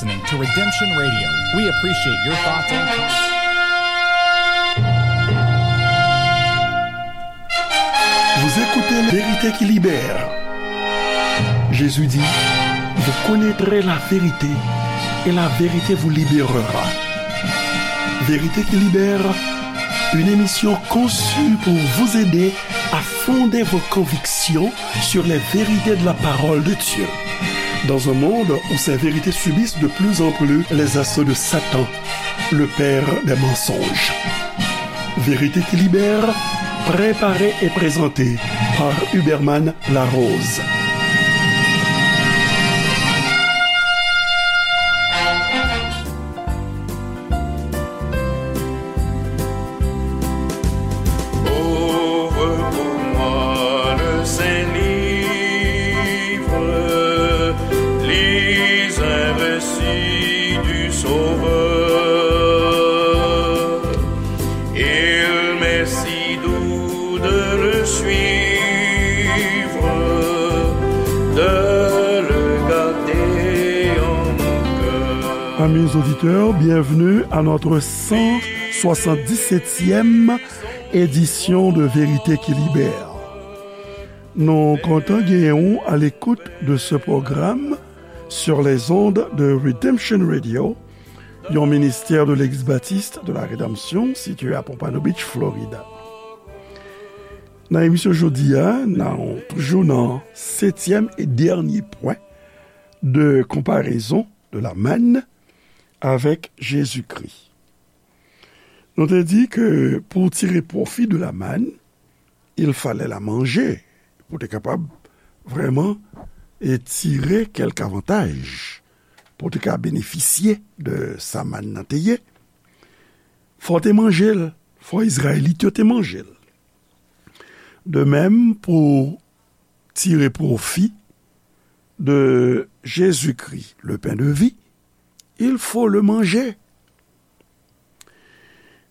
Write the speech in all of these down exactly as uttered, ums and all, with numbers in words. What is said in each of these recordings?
Listening to Redemption Radio. We appreciate your thoughts and comments. Vous écoutez Vérité qui libère. Jésus dit, vous connaîtrez la vérité et la vérité vous libérera. Vérité qui libère, une émission conçue pour vous aider à fonder vos convictions sur les vérités de la parole de Dieu. Dans un monde où ces vérités subissent de plus en plus les assauts de Satan, le père des mensonges. Vérité qui libère, préparée et présentée par Huberman Larose. Ouvre pour moi le Saint Livre, lis un récit du Sauveur. Il m'est si doux de le suivre, de le garder en mon cœur. Amis auditeurs, bienvenue à notre cent soixante-dix-septième édition de Vérité qui Libère. Nou kontan genyen w à l'écoute de ce programme sur les ondes de Redemption Radio, yon ministè de Legliz Batis de la Rédemption, sitiye a Pompano Beach, Florida. Nan emisyon jodi a, nou toujou nan setyèm e dènye pwen de konparezon de la manne avec Jésus-Christ. Nou te di ke pou tire pwofi de la manne, il fallait la manger, pou te kapab vrèman e tire kèk avantaj, pou te ka benefisye de sa mann nan te ye. Fò te manje l, fò Izrayelit yo te manje l. De même, pou tire pwofi de Jésus-Christ, le pain de vie, il faut le manger.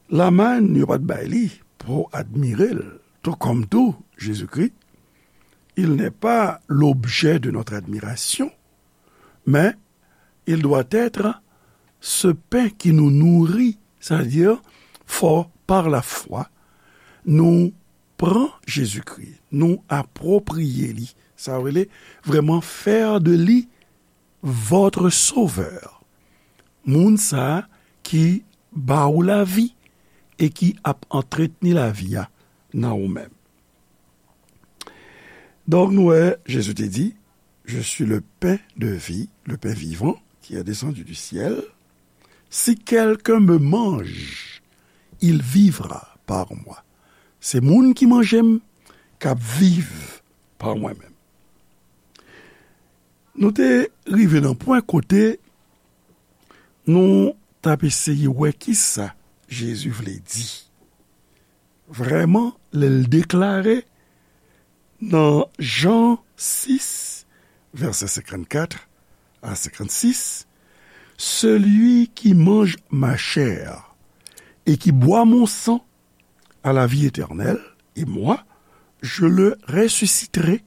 La manne, yo pa t bay li pou admire l, tout comme tout, Jésus-Christ, il n'est pas l'objet de notre admiration, mais il doit être ce pain qui nous nourrit, c'est-à-dire, fò, par la foi, nou pran Jezikri, nou apwopriye li, sa vle vrèman fè de li votre Sauveur. Moun sa a ki ba ou lavi e ki ap antretni lavi a nan ou menm. Donk, nou wè, Jezi te di, Je suis le pain de vie, le pain vivant qui est descendu du ciel. Si quelqu'un me mange, il vivra par moi. Se moun ki manje m, k ap viv pa mwen menm. Nou te rive nan pwen kote nou t ap eseye wè kisa Jezi vle di. Vrèman, lè l deklare nan Jan sis, vèsè senkannkat a senkannsis, Celui qui mange ma chair et qui boit mon sang a la vie éternelle, et moi, je le ressusciterai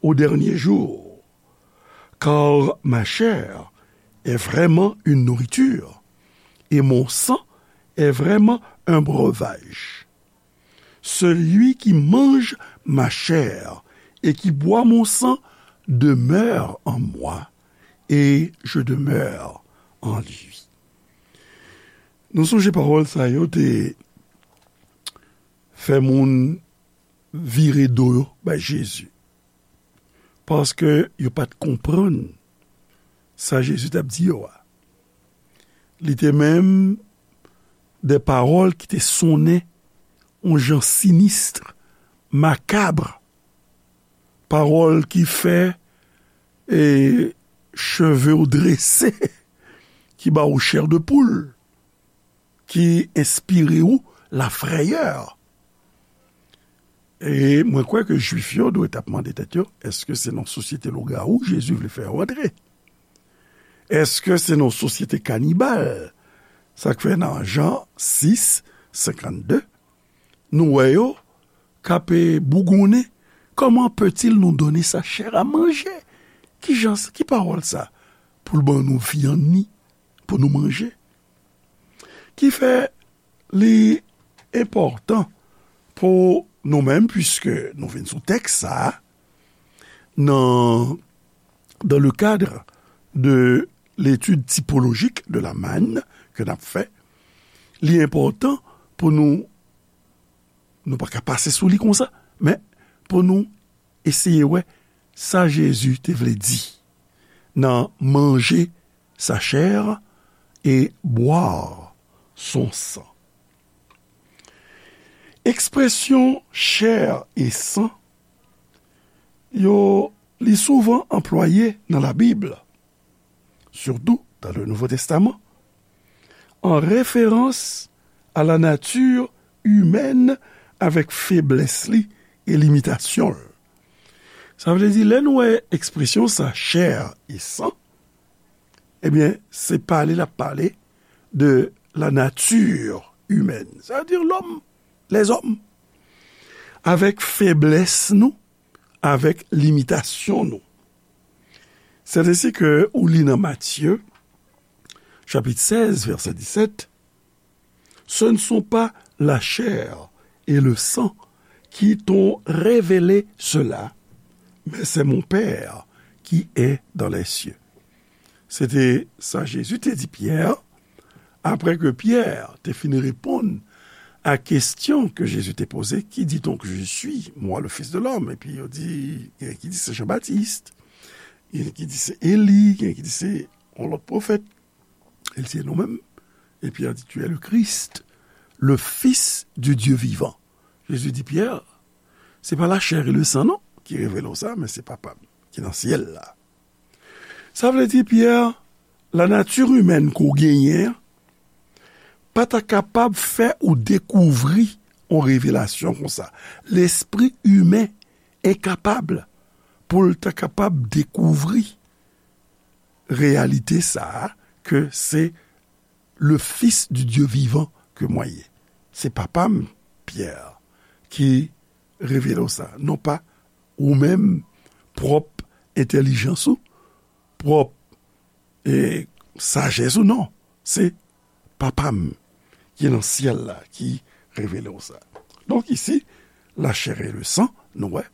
au dernier jour. Car ma chair est vraiment une nourriture, et mon sang est vraiment un breuvage. Celui qui mange ma chair et qui boit mon sang demeure en moi, et je demeure en lui. Nou sonje pawòl sa yo te fè moun vire do yo bay Jezi. Paske yo pa t konprann sa Jezi t ap di yo a. Li te menm de pawòl ki te sonnen yon jan sinis, makab, pawòl ki fè, e, cheve w drese, ki ba w chè de poul, ki enspire w lafrèyè. E mwen kwè ke Jwif yo dwe t ap mande tèt yo, èske se nan sosyete lougawou Jezi vle fè yo antre? Èske se nan sosyete kanibal? Sa k fè nan Jan sis, senkannde, nou wè yo k ap, e, bougonnen, Comment peut-il nous donner sa chair à manger? Ki jan, ki pawòl sa? pou l ban nou vyann li, pou nou manje. Ki fè li enpòtan pou nou menm, puiske nou vin sou tèks sa a, nan, dans le cadre de l'étude typologique de la manne ke n ap fè, li enpòtan pou nou, nou pa ka pase sou li konsa, men pou nou eseye wè sa Jezi te vle di nan manger sa chair et boire son sang. Ekspresyon chair et sang, yo, li souvan anplwaye nan Labib, surtout dans le Nouveau Testament, en référence à la nature humaine avèk feblès li e limitasyon l. Sa vle di, lè nou wè ekspresyon sa, chair et sang, ebyen, se pale l ap pale de la nature humaine, c'est-à-dire l'homme, les hommes, avèk feblès nou, avèk limitasyon nou. C'est ainsi que ou li nan Matthieu, chapitre seize, verset dix-sept, ce ne sont pas la chair et le sang qui t'ont révélé cela, mais c'est mon Père qui est dans les cieux. Se te sa Jezi te di Pyè, apre ke Pyè te fin reponn a kesyon ke Jezi te poze, Qui dit-on que je suis, moi, le Fils de l'homme? Epi yo di, gen ki di se Jan Batis, gen ki di se Eli, gen ki di se yon lòt pwofèt. El se nou menm. Epi yo di, Tu es le Christ, le Fils du Dieu vivant. Jezi di Pyè, se pa la chair et le sang non ki revele w sa, men se Papa m ki nan syèl la. Sa vle di, Pyè, la nature humaine ke w genyen an pa ta kapab fè ou dekouvri yon revelasyon konsa. Lespri imen enkapab pou l ta kapab dekouvri reyalite sa a, ke se le Fils du Dieu vivant ke mwen ye. Se Papa m, Pyè, ki revele w sa. Non pa ou menm, pwòp entèlijans ou, pwòp, e, sajès ou, non. Se Papa m ki nan syèl la ki revele w sa. Donk, isi, la chair et le sang, nou wè,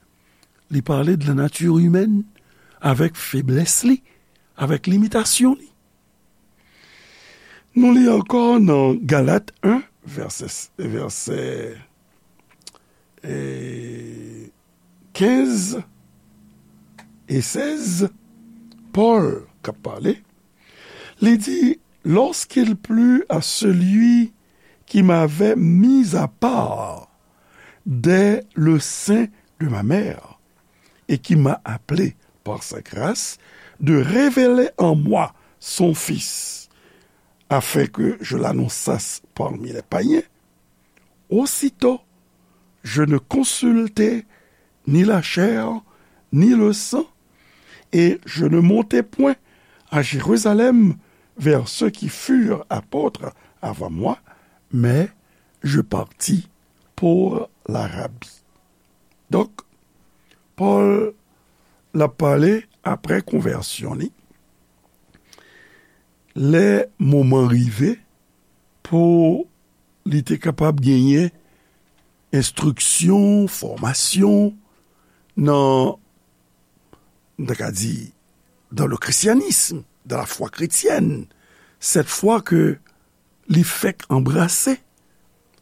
li pale de la nature humaine, avèk feblès li, avèk limitasyon li. Nou li ankò nan Galat en, vèsè, vèsè, e, kenz e sèz, Pòl k ap pale, li di, Lorsqu'il plut à celui qui m'avait mis à part dès le sein de ma mère, et qui m'a appelé par sa grâce, de révéler en moi son Fils, afin que je l'annonçasse parmi les païens. Aussitôt, je ne consultai ni la chair, ni le sang, et je ne montai point à Jérusalem vers ceux qui furent apôtres avant moi, mais je partis pour l'Arabie. Donk, Pòl, l ap pale apre konvèsyon li, lè moman rive pou li te kapab genyen enstriksyon, fòmasyon nan, nou ta ka di, dans le christianisme, dans la foi chrétienne, cette foi que li fèk anbrase,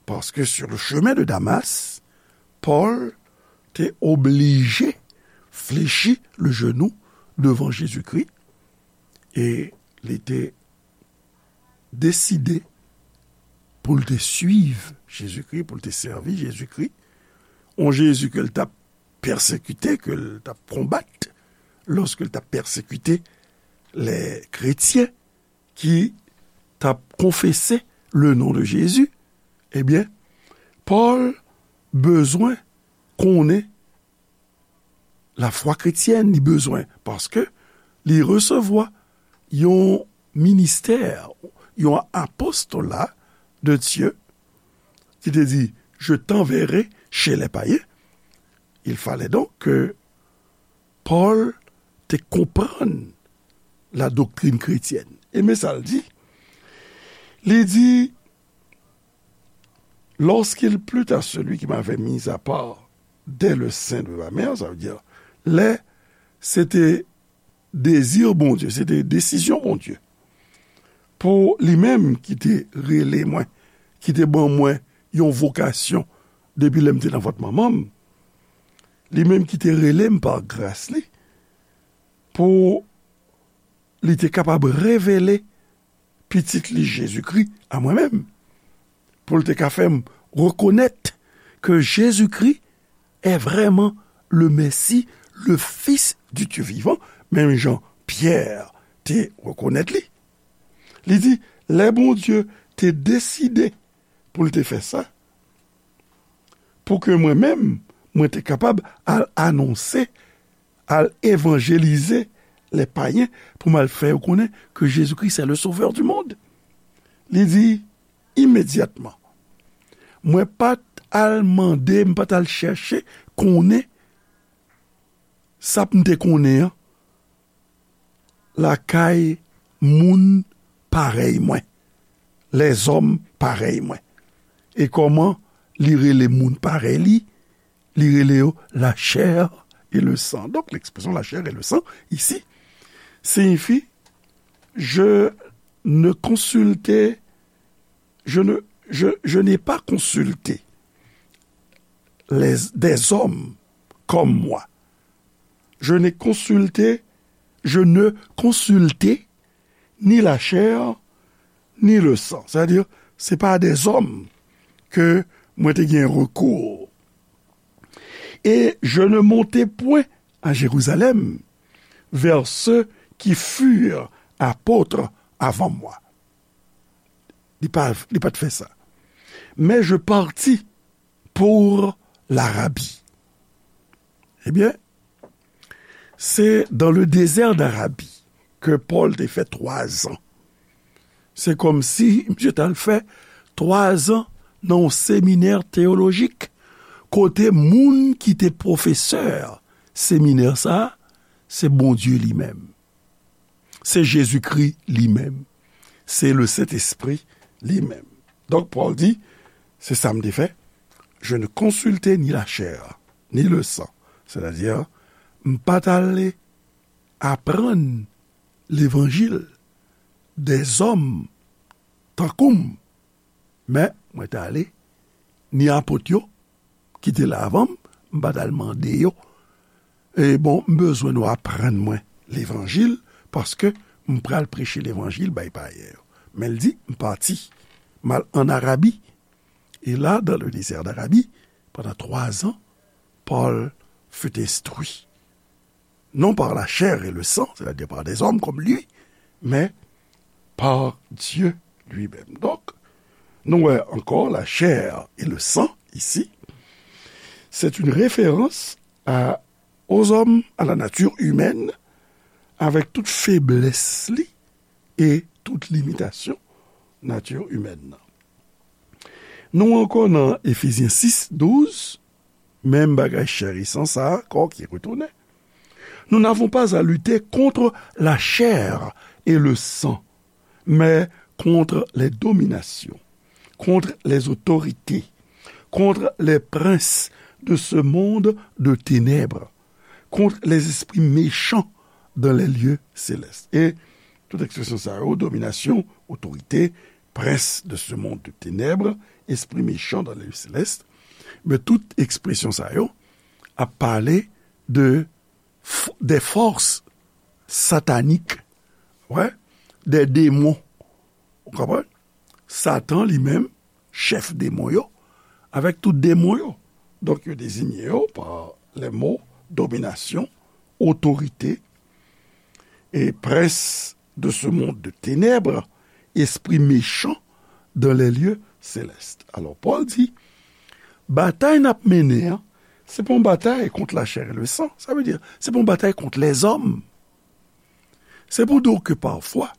paske sur le chemin de Damas, Pòl te oblije flechi le genou devan Jezikri, e li te deside pou l te suiv Jezikri, pou l te sèvi Jezikri, yon Jezi ke l t ap pèsekite, ke l t ap konbat, lòske l t ap pèsekite lè kretyen ki t ap konfese le non de Jezi, ebyen, Pòl bezwen konnen lafwa kretyèn, li bezwen, paske li resevwa yon ministè, yon apostola de Dye, ki te di, Je t'enverrai chez les païens. Il fallait donc que Pòl te konprann la doctrine chrétienne. E men sa l di. Li di, lorsqu'il plut à celui qui m'avait mis à part dès le sein de ma mère, sa vle di, lè se te dezi Bondye, se te desizyon Bondye pou li menm ki te rele mwen, ki te ban mwen yon vokasyon depi lè m te nan vant manman m, li menm ki te rele m pa gras li, pou li te kapab revele Pitit li Jezikri a mwen menm, pou l te ka fè m rekonèt ke Jezikri est vraiment le Messie, le Fils du Dieu vivant, menm jan Pyè te rekonèt li. Li di, lè Bondye te deside pou l te fè sa, pou ke mwen menm, mwen te kapab al anonse, al evanjelize lè payen, pou m al fè yo konnen ke Jezikri se le Sauveur du monde. Li di, imedyatman, mwen pa t al mande, m pa t al chèche konnen sa m te konnen an lakay moun parèy mwen, lèzòm parèy mwen. E kòman li rele moun parèy li? Li rele yo la chair et le sang. Donk, l'expression la chair et le sang, ici, signifie, je ne consultais, je ne, je, je n'ai pas consulté les, des hommes comme moi. Je n'ai consulté, je ne consultais ni la chair, ni le sang. Sa vle di, se pa a dèzòm ke mwen te gen rekou. Et je ne montai point à Jérusalem vers ceux qui furent apôtres avant moi. Li pa, li pa t fè sa. Mais je partis pour l'Arabie. Ebyen, se dans le désert d'Arabie ke Pòl te fè twa zan. Se kòmsi misye t al fè twa zan nan yon seminè teyolojik, kote moun ki te pwofesè seminè sa a, se Bondye li menm. Se Jezikri li menm. Se le Sentespri li menm. Donk, Pòl di, se sa m te fè. Je ne consultai ni la chair, ni le sang. Sètadi, m pa t ale aprann levanjil dèzòm tankou m, men mwen t ale ni apot yo ki te la avan m, m pa t al mande yo, e bon, m bezwen nou aprann mwen levanjil, paske m pral preche levanjil bay payen yo. Men l di, m pati, m al ann Arabi. Et là, dans le désert d'Arabie, pendant trois ans, Paul fut instruit, non par la chair et le sang, c'est-à-dire par des hommes comme lui, mais par Dieu lui-même. Donc, nou wè ankò la chair et le sang ici, c'est une référence à, aux hommes, à la nature humaine, avec toute faiblesse li et toute limitation nature humaine nan. Nou ankò nan Efezyen sis, douz, menm bagay chè e san sa ankò ki retounen. Nous n'avons pas à lutter contre la chair et le sang, mais contre les dominations, contre les autorités, contre les princes de ce monde de ténèbres, contre les esprits méchants dans les lieux célestes. E tout ekspresyon sa yo, dominasyon, otorite, prince de ce monde de ténèbres, esprit méchant dans les lieux célestes, men tout ekspresyon sa yo ap pale de f-, des forces sataniques, ouais, des démons. Ou konprann? Satan li menm, chèf demon yo, avèk tout demon yo. Donk, yo dezinye yo pa les mots domination, autorité, et prince de ce monde de ténèbres, esprit méchant dans les lieux célestes. Alò, Pòl di, batay n ap mennen an, se pa yon batay kont la chair et le sang. Sa vle di, se pa yon batay kont lèzòm. Se pou di w ke pafwa,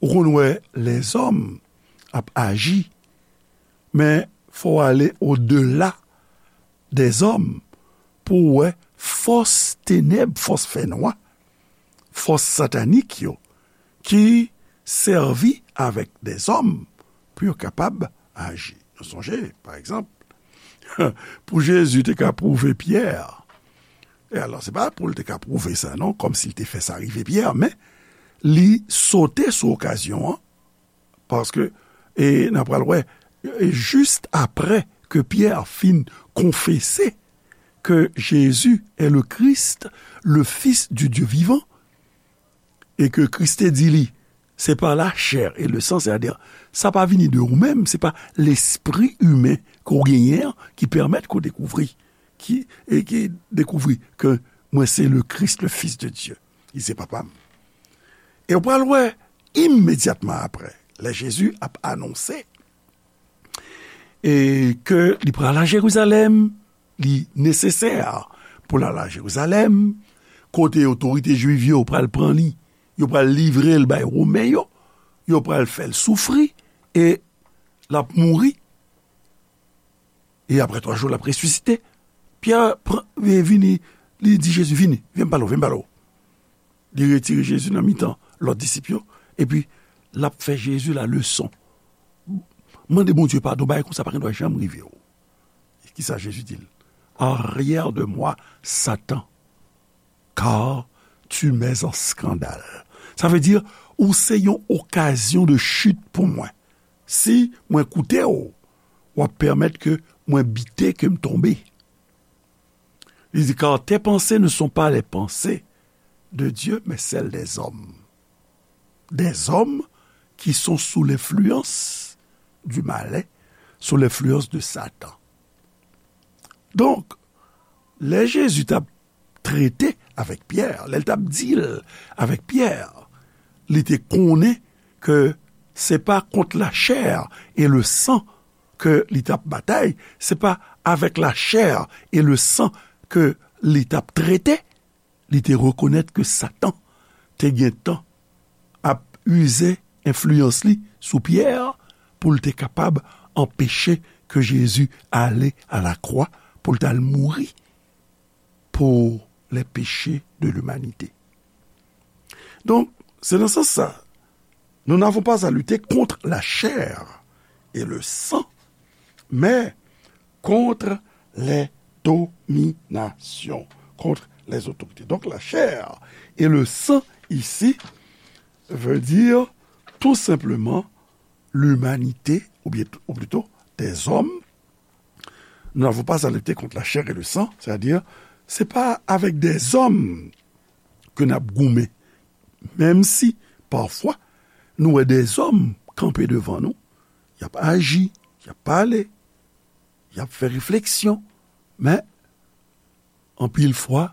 ou konn wè lèzòm ap aji, men fò w ale odela dèzòm pou w wè fòs tenèb, fòs fènwa, fòs satanik yo ki sèvi avèk dèzòm pou yo kapab aji. Nou sonje, pa egzanp, pou Jezi te ka pwouve Pyè, e alò, se pa pou l te ka pwouve sa non, kòmsi l te fè sa rive Pyè, men li sote sou okazyon an, paske, e n a pral wè, e jis apre ke Pyè fin konfese ke Jezi est le Christ, le Fils du Dieu vivant, e ke Kris te di li, se pa la chè e le san, sètadi, sa pa vini de ou menm, se pa lespri imen ke w genyen an ki pèmèt ke w dekouvri, ki, e ki dekouvri ke mwen se le Christ, le Fils de Dieu. Li se papa m. E w pral wè, imedyatman apre, lè Jezi ap anonse, e ke li pral a Jerizalèm, li nesesè pou l al a Jerizalèm, kote otorite jwiv yo pral pran li, yo pral livre l bay Women yo, yo pral fè l soufri, e l ap mouri, e apre twa jou, l ap resisite. Pyè pran, e vini, li di Jezi, vini, vin m pale w, vin m pale w. Li retire Jezi nan mitan lòt disip yo, epi l ap fè Jezi laleson. Mande Bondye padon, bagay konsa pa gen dwa janm rive w. Kisa Jezi di l? Arrière de moi, Satan, car tu m'es un scandale. Sa vle di, ou se yon okazyon de chit pou mwen. Si mwen koute w, w ap pèmèt ke mwen bite, ke m tonbe. Li di, car tes pensées ne sont pas les pensées de Dieu, mais celles des hommes. Des hommes qui sont sous l'influence du malin, sous l'influence de Satan. Donk, lè Jezi t ap trete avèk Pyè, lè l t ap deal avèk Pyè, li te konnen ke se pa kont la chair et le sang ke li t ap batay, se pa avèk la chair et le sang ke li t ap trete. Li te rekonèt ke Satan te gentan ap ize enfliyans li sou Pyè pou l te kapab anpeche ke Jezi ale a la kwa pou l t al mouri pour les péchés de l'humanité. Donk, se nan sans sa, nous n'avons pas à lutter contre la chair et le sang, mais contre les dominations, contre les autorités. Donc, la chair et le sang ici veut dire tout simplement l'humanité, ou bien, ou plutôt des hommes. Nous n'avons pas à lutter contre la chair et le sang, c'est-à-dire, se pa avèk dèzòm ke n ap goumen, menm si, pafwa, nou wè dèzòm kanpe devan nou, y ap aji, y ap pale, y ap fè refleksyon, men, anpil fwa,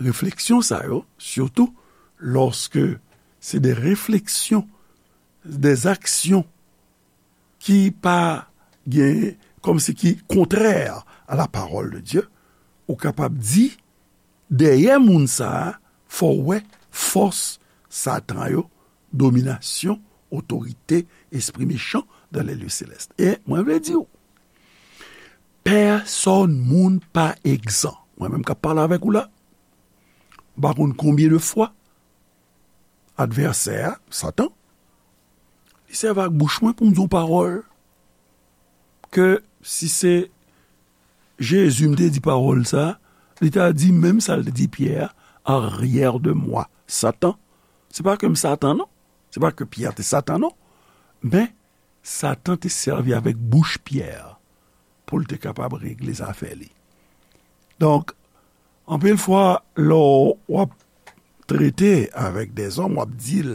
refleksyon sa yo, sitou lòske se de refleksyon, de aksyon ki pa gen, kòmsi ki kontrè a la parole de Dieu, ou kapab di, dèyè moun sa a, fò w wè fòs Satan yo, dominasyon, otorite, espri mechan dans les lieux célestes. E mwen vle di w, pèsòn moun pa egzan. Mwen menm k ap pale avèk ou la, m pa konn konbyen de fwa advèsè a, Satan, li sèvi ak bouch mwen pou m di yon pawòl ke si se Jezi m te di pawòl sa, li ta di menm sa l te di Pyè a, arrière de moi, Satan. Se pa ke m Satan non, se pa ke Pyè te Satan non, men Satan te sèvi avèk bouch Pyè pou l te kapab regle zafè li. Donk, anpil fwa, lè w ap trete avèk dèzòm, w ap deal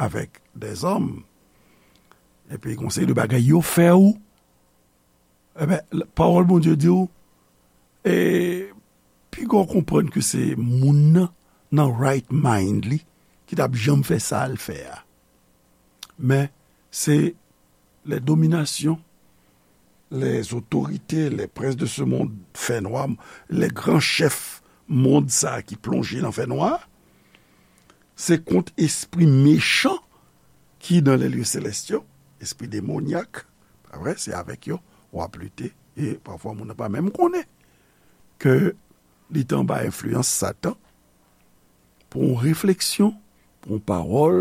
avèk dèzòm, epi gon seri de bagay yo fè w, enben, pawòl Bondye di w, e piga w konprann ke se moun nan, nan right mind li, ki t ap janm fè sa l fè a. Men, se les dominations, les autorités, les princes de ce monde fènwa, les grands chefs mond sa a ki plonje nan fènwa, se kont espri mechan ki dans les lieux célestes yo, espri demonyak, pa vre, se avèk yo w ap lite, e pafwa moun nan pa menm konnen ke li te anba enfliyans Satan, pou yon refleksyon, pou yon pawòl,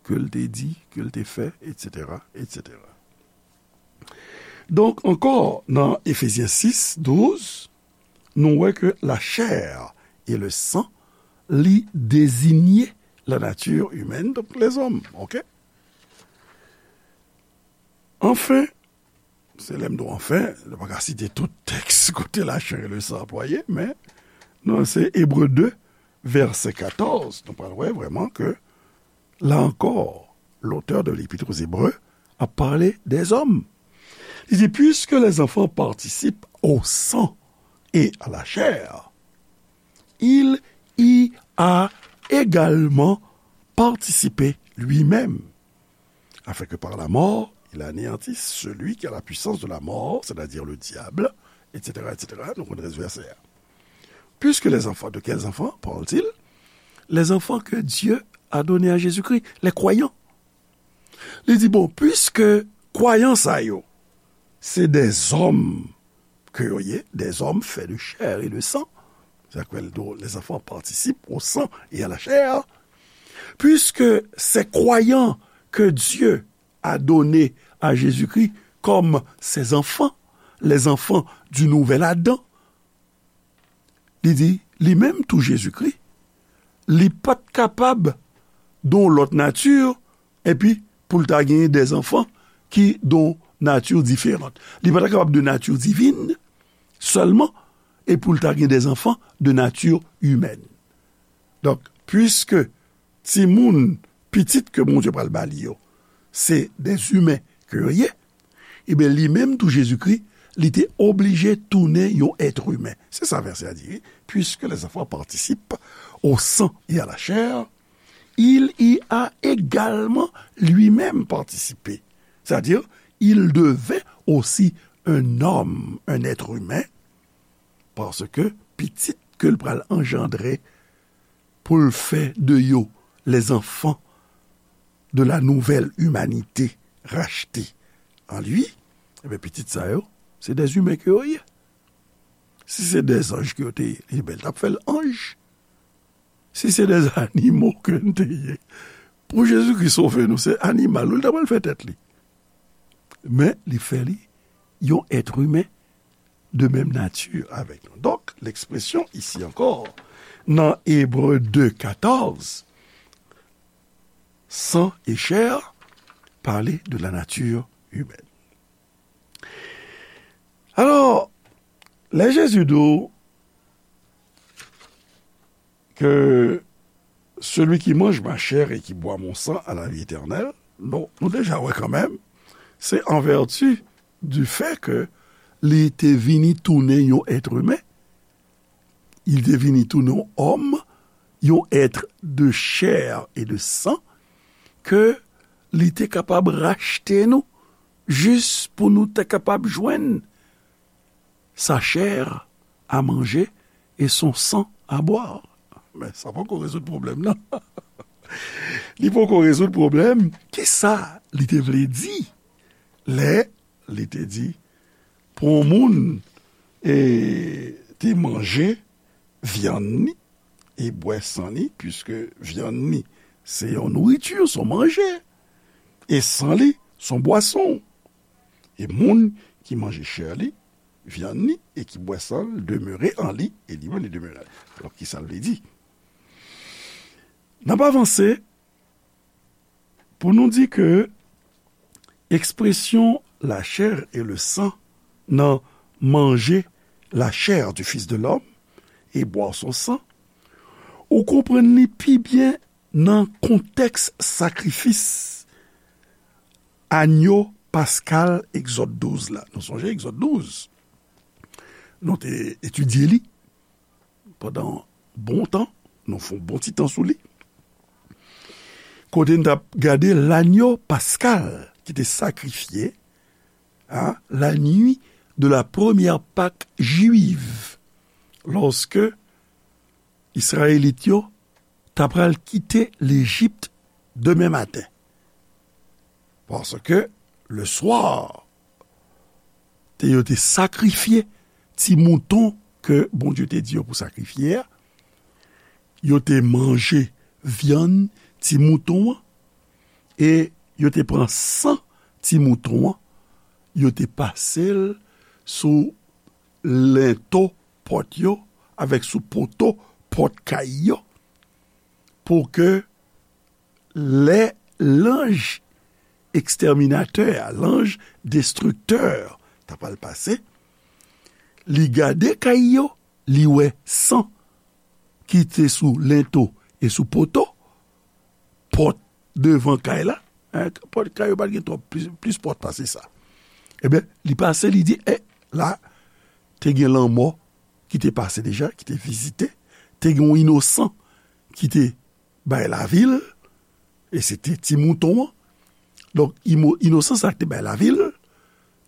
ke l te di, ke l te fè, etsetera, etsetera. Donk, ankò, nan Efezyen sis, douz, nou wè ke la chair et le sang, li dezinye la nature humaine, donk lèzòm, oke? Anfen, se lè m di w anfen, nou pa ka site tout tèks kote la chair et le sang anplwaye, men nan se Ebre de, vèsè katòz, nou pral wè vrèman ke, la ankò, l'auteur de l'Épître aux Hébreux ap pale dèzòm. Li di, puisque les enfants participent au sang et à la chair, il y a également participé lui-même, afin que par la mort, il anéantisse celui qui a la puissance de la mort, c'est-à-dire le diable, etsetera, etsetera. Nou konn rès vèsè a. Puisque les enfants, de quels enfants parle-t-il? Les enfants que Dieu a donnés à Jésus-Christ, les croyants. Li di, bon, puiske kwayan sa yo, se dèzòm ke yo ye, des hommes faits de chair et de sang, sa kwè l do, les enfants participent au sang et à la chair, puisque ces croyants que Dieu a donnés à Jésus-Christ comme ses enfants, les enfants du nouvel Adam, li di, li menm tou Jezikri, li pa t kapab don lòt nati, epi pou l ta genyen dèzanfan ki don nati diferan. Li pa ta kapab de nati divin sèlman, e pou l ta gen dèzanfan de nati imèn. Donk, piske timoun, pitit ke Bondye pral ba li yo, se dèzimen ke yo ye, ebyen, li menm tou Jezikri, li te oblije tounen yon èt imen. Se sa vèsè a di, wi. Puisque les enfants participent au sang et à la chair, il y a également lui-même participé. C'est-à-dire, il devint aussi un homme, un être humain, paske pitit ke l pral anjandre pou l fè de yo les enfants de la nouvelle humanité rachetée en lui, ebyen, pitit sa yo, se dèzimen ke yo ye. Si se dèzanj ke yo te ye, ebyen, l t ap fè l anj. Si se dèzanimo ke n te ye, pou Jezikri sove nou, se animal, wi, l ta pral fè tèt li. Men, li fè li yon èt imen de menm nati avèk nou. Donk, lekspresyon isi ankò, nan Ebre de katòz, sang et chair, pale de la nature humaine. Alò, lè Jezi di w que celui qui mange ma chair et qui boit mon sang a la vie éternelle, nou, nou deja wè kanmenm, se an vèti du fait que li te vini tounen yon èt imen, li te vini tounen yon òm, yon èt de chair et de sang, ke li te kapab rachte nou, jis pou nou te kapab jwenn sa chair à manger et son sang à boire. Men sa poko rezoud pwoblèm nan. Li poko rezoud pwoblèm. Kisa li te vle di lè li te di pou yon moun, e, te manje vyann li e bwè san li, piske vyann li se yon nouriti, se yon manje, e san li se yon bwason. E moun ki manje chè li, vyann li, e ki bwè san l, demere an li, e li menm li demere an li. Alò, kisa l vle di? N ap avanse pou nou di ke ekspresyon la chair et le sang nan manger la chair du Fils de l'homme et boire son sang, ou konprann li pi byen nan kontèks sakrifis anyo paskal Egzòd douz la. Nou sonje Egzòd douz? Nou te etidye li pandan bon tan, nou fè yon bon ti tan sou li. Kote n t ap gade lanyo paskal ki te sakrifye, hein, la nuit de la première Pâque juive, lorsque Izrayelit yo ta pral kite Lejip demen maten. Paske le swa, te, yo te sakrifye ti mouton ke Bondye te di yo pou sakrifye a. Yo te manje vyann ti mouton an. E yo te pran san ti mouton an, yo te pase l sou lento pòt yo avèk sou poto pòt kay yo, pou ke lè lanj ekstèminatè a, lanj destriktè, ta pral pase, li gade kay yo, li wè san ki te sou lento e sou poto, pòt devan kay la, en, pòt kay yo pa t gen twòp, plis, plis pòt pase sa. Ebyen, li pase, li di, e, la, te gen lanmò ki te pase deja, ki te vizite, te gen yon inosan ki te bay lavi l, e se te ti mouton an. Donk, imo-, inosan sa ki te bay lavi l,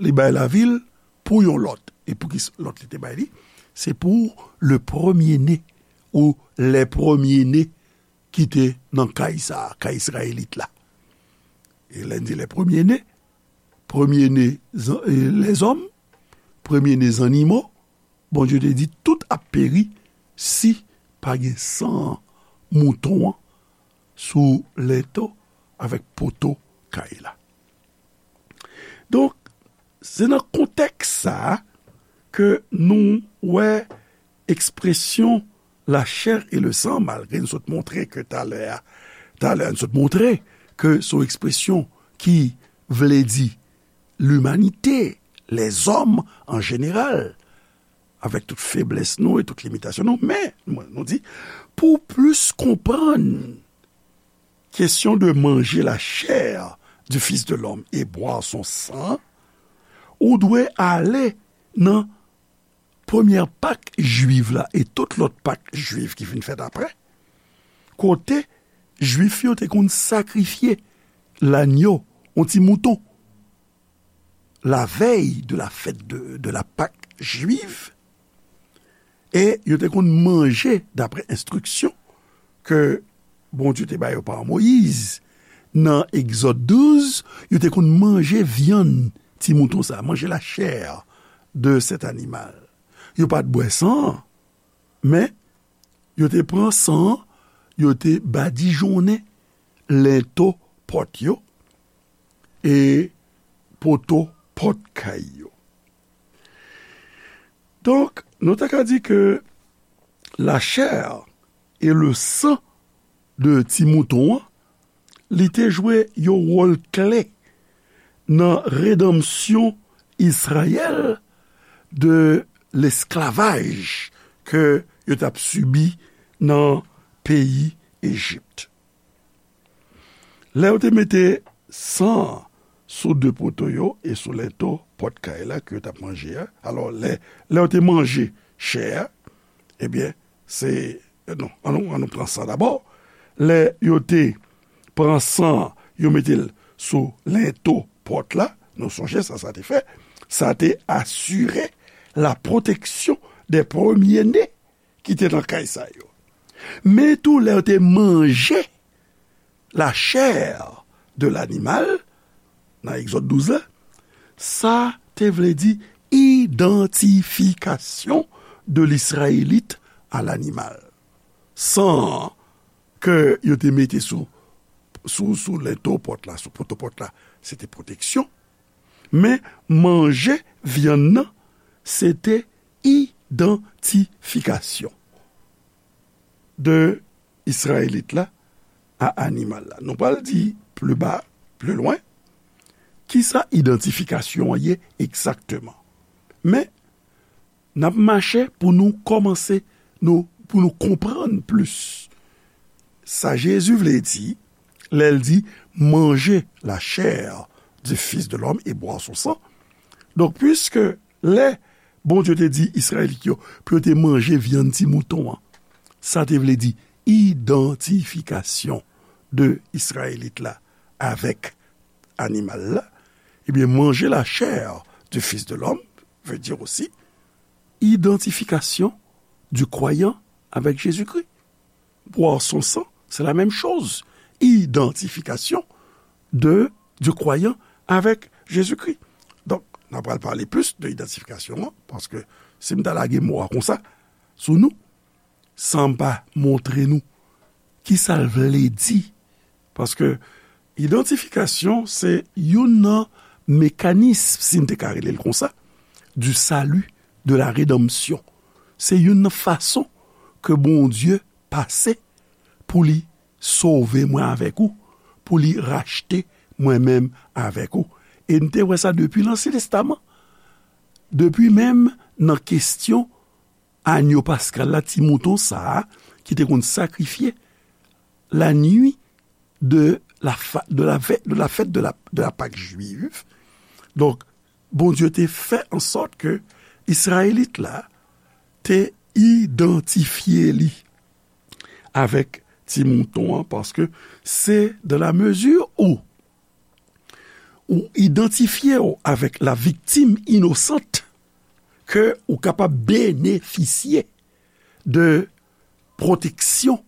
li bay lavi l pou yon lòt. E pou ki s-, lòt li te bay li? Se pou le premier-né, ou les premiers-nés ki te nan kay sa a, kay Izrayelit la. E lè n di les premiers-nés, premye ne zan-, e, lèzòm, premye ne zannimo, Bondye te di tout ap peri si pa gen san mouton an sou lento avèk poto kay la. Donk, se nan kontèks sa a ke nou wè ekspresyon la chair et le sang, malgre n sot montre ke talè a, talè a n sot montre ke se yon ekspresyon ki vle di limanite, lèzòm an jeneral, avèk tout feblès nou e tout limitasyon nou. Men, nou di, pou w plis konprann kesyon de manger la chair du Fils de l'homme et boire son sang, ou dwe ale nan premyè Pak jwiv la e tout lòt Pak jwiv ki vin fèt apre, kote Jwif yo te konn sakrifye lanyo, yon ti mouton, la veille de la fête de, de la Pâque juive, e yo te konn manje, daprè enstriksyon ke Bondye te ba yo pa Moyiz, nan Egzòd douz, yo te konn manje vyann ti mouton sa, manger la chair de cet animal. Yo pa t bwè san an, men yo te pran san an, yo te badijonnen lento pòt yo e poto pòt kay yo. Donk, nou ta ka di ke la chair et le sang de ti mouton an, li te jwe yon wòl kle nan redanmsyon Izrayèl de lesklavaj ke yo t ap sibi nan peyi Ejip. Lè yo te mete san an sou de poto yo e sou lento pòt kay la ke yo t ap manje a, alò, lè, lè yo te manje chè a, ebyen, se, non, an nou, an nou pran san dabò. Lè yo te pran san an, yo mete l sou lento pòt la, nou sonje sa sa te fè, sa te asire la protection des premiers-nés ki te nan kay sa yo. Men tou, lè yo te manje la chair de l'animal, nan Egzòd douz la, sa te vle di identification de l'Israélite à l'animal. San an ke yo te mete sou, sou, sou lento pòt la, sou poto pòt la, se te pwoteksyon. Men manje vyann nan, se te idantifikasyon de Izrayelit la a animal la. Nou pral di pli ba, pli lwen, kisa idantifikasyon an ye egzakteman. Men, n ap mache pou nou kòmanse, nou, pou nou konprann plis sa Jezi vle di lè l di, manger la chair du Fils de l'homme et boire son sang. Donk, piske lè Bondye te di Izrayelit yo pou yo te manje vyann ti mouton an, sa te vle di idantifikasyon de Izrayelit la avèk animal la, ebyen, manger la chair du Fils de l'homme veut dire aussi identification du croyant avec Jésus-Christ. Boire son sang, c'est la même chose. Identification de, du croyant avec Jésus-Christ. Donk, n ap pral pale plis de idantifikasyon an, paske si m ta lage mo a konsa sou nou, san m pa montre nou kisa l vle di, paske Idantifikasyon se youn nan mekanism, si n te ka rele l konsa, du salut, de la rédemption. Se youn nan fason ke Bondye pase pou li sove mwen avèk ou, pou li rachte mwen menm avèk ou. E n te wè sa depi Lansyen Testaman. Depi menm nan kesyon anyo paskal la, ti mouton sa a, ki te konn sakrifye la nuit de la, fa- de la, ve- de la fête de la, de la Pâque juive. Donk, Bondye te fè an sòt ke Izrayelit la te idantifye li avèk ti mouton an, paske se dans la mesure où ou idantifye w avèk la victime innocente ke ou kapab benefisye de pwoteksyon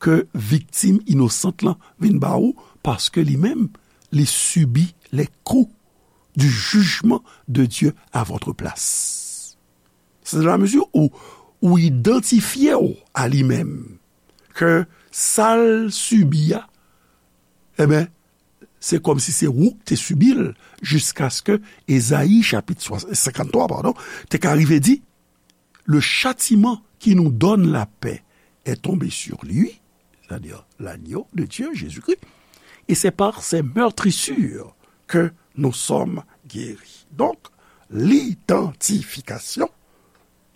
ke viktim inosant lan vin ba ou, paske li menm, li sibi les coups du jugement de Dieu à votre place. C'est dans la mesure où ou idantifye w a li menm, ke sa l sibi a, e ben, se kòmsi se ou k te sibi l, jiskaske Ezayi chapit senkant twa, padon, te ka rive di, le châtiment qui nous donne la paix est tombé sur lui, c'est-à-dire l'agneau de Dieu, Jésus-Christ, et c'est par ses meurtrissures que nous sommes guéris. Donk, lidantifikasyon,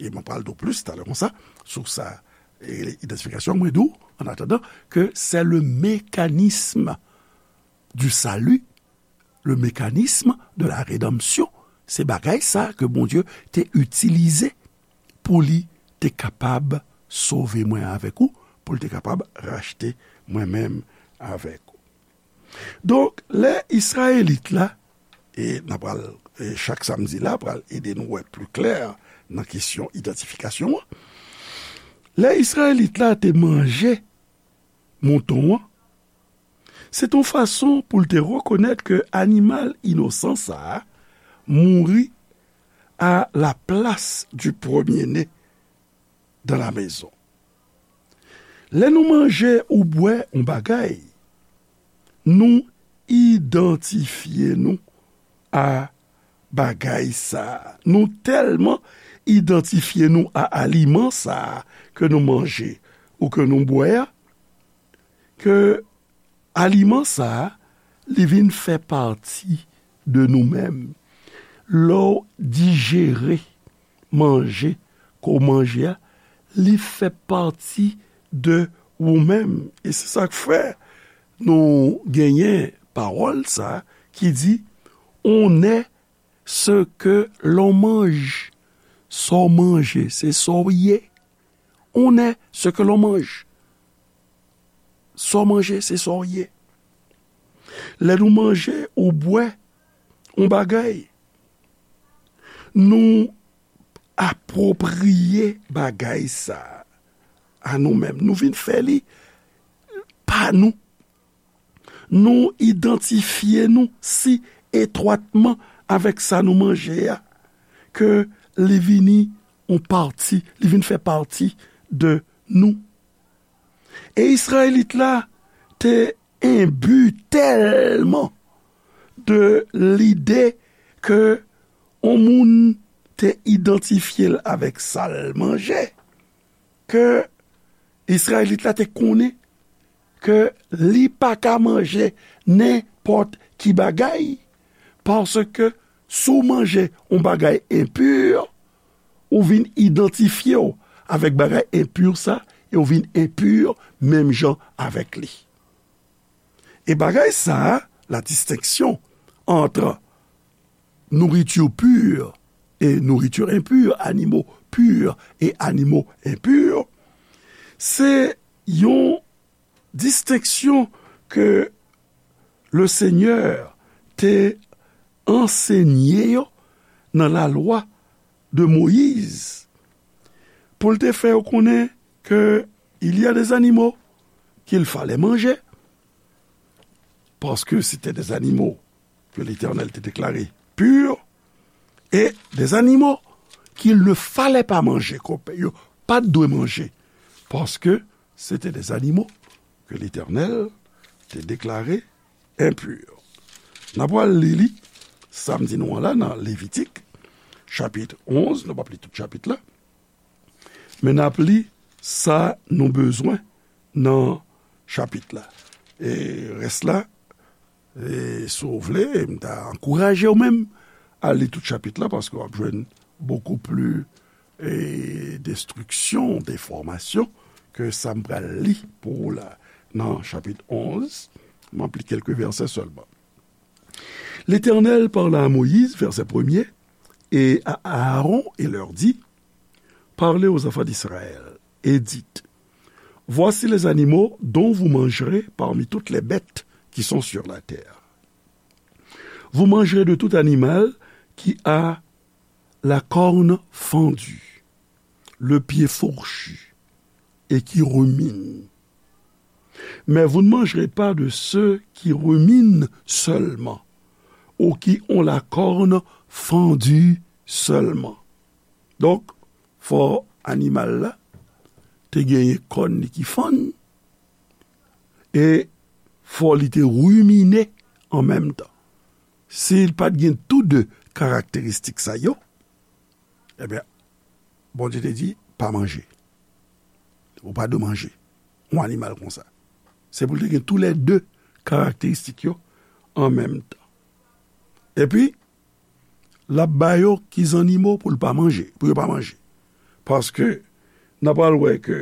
e mwen pral di w plis talè konsa, sou sa, e idantifikasyon, mwen di w, an atandan, ke c'est le mécanisme du salut, le mécanisme de la rédemption. Se bagay sa ke Bondye te itilize pou li te kapab sove mwen avèk ou, pou li te kapab rachte mwen menm avèk ou. Donk, lè Izrayelit la, e n a pral, e chak samdi la, pral ede nou wè pli klè nan kesyon idantifikasyon an. Lè Izrayelit la te manje mouton an, se t on fason pou l te rekonèt ke animal inosan sa a mouri à la place du premier-né dans la maison. Lè nou manje ou bwè yon bagay, nou idantifye nou a bagay sa a. Nou tèlman idantifye nou a aliman sa a ke nou manje ou ke nou bwè a, ke aliman sa a, li vin fè pati de nou menm. Lè w dijere manje ke w manje a, li fè pati de ou menm. E se sa k fè nou genyen pawòl sa a ki di, on est ce que l'on mange. Sa w manje, se sa w ye. On est ce que l'on mange. Sa w manje, se sa w ye. Lè nou manje ou bwè yon bagay, nou apwopriye bagay sa a nou menm. Nou vin fè li pa nou. Nou idantifye nou si etwatman avèk sa nou manje a, ke li vini yon pati, li vin fè pati de nou. E Izrayelit la te enbi tèlman de lide ke yon moun te idantifye l avèk sa l manje, ke Izrayelit la te konnen ke li pa ka manje nenpòt ki bagay, paske si w manje yon bagay enpi, ou vin idantifye w avèk bagay enpi sa, e ou vin enpi menm jan avèk li. E bagay sa a, la distinction entre nourriture pure et nourriture impure, animaux purs et animaux impurs, se yon distenksyon ke le Seigneur te ansenye yo nan lalwa de Moyiz, pou l te fè yo konnen ke il y a des animaux qu'il fallait manger, parce que c'était des animaux que l'Éternel te déclaré purs, et des animaux qu'il ne fallait pas manger, ke yo pa t dwe manje, paske se te des animaux que l'Éternel te déclaré enpi. N ap pral li li, sa m di nou an la, nan Levitik, chapit onz, nou p ap li tout chapit la, men n ap li sa nou bezwen nan chapit la. E rès la, e si w vle, m ta ankouraje w menm al li tout chapit la, paske w ap jwenn bokou pli, e, destriksyon, de enfòmasyon ke sa m pral li pou ou la. Nan chapit onz, m ap li kèlke vèsè sèlman. L'Éternel parla à Moïse, verset premier, et à Aaron, et leur dit, Parlez aux enfants d'Israël, et dites, Voici les animaux dont vous mangerez parmi toutes les bêtes qui sont sur la terre. Vous mangerez de tout animal qui a la corne fendue, le pied fourchu, et qui rumine. Mais vous ne mangerez pas de ceux qui ruminent seulement, ou qui ont la corne fendue seulement. Donk, fò animal la te genyen kòn li ki fann, e fò li te rimine an menm tan. Si l pa t gen tou de karakteristik sa yo, ebyen, Bondye te di, pa manje. Ou pa dwe manje yon animal konsa. Se pou l te gen toulède karakteristik yo an menm tan. Epi, l ap ba yo ki zannimo pou l pa manje, pou yo pa manje. Paske, n ap pral wè ke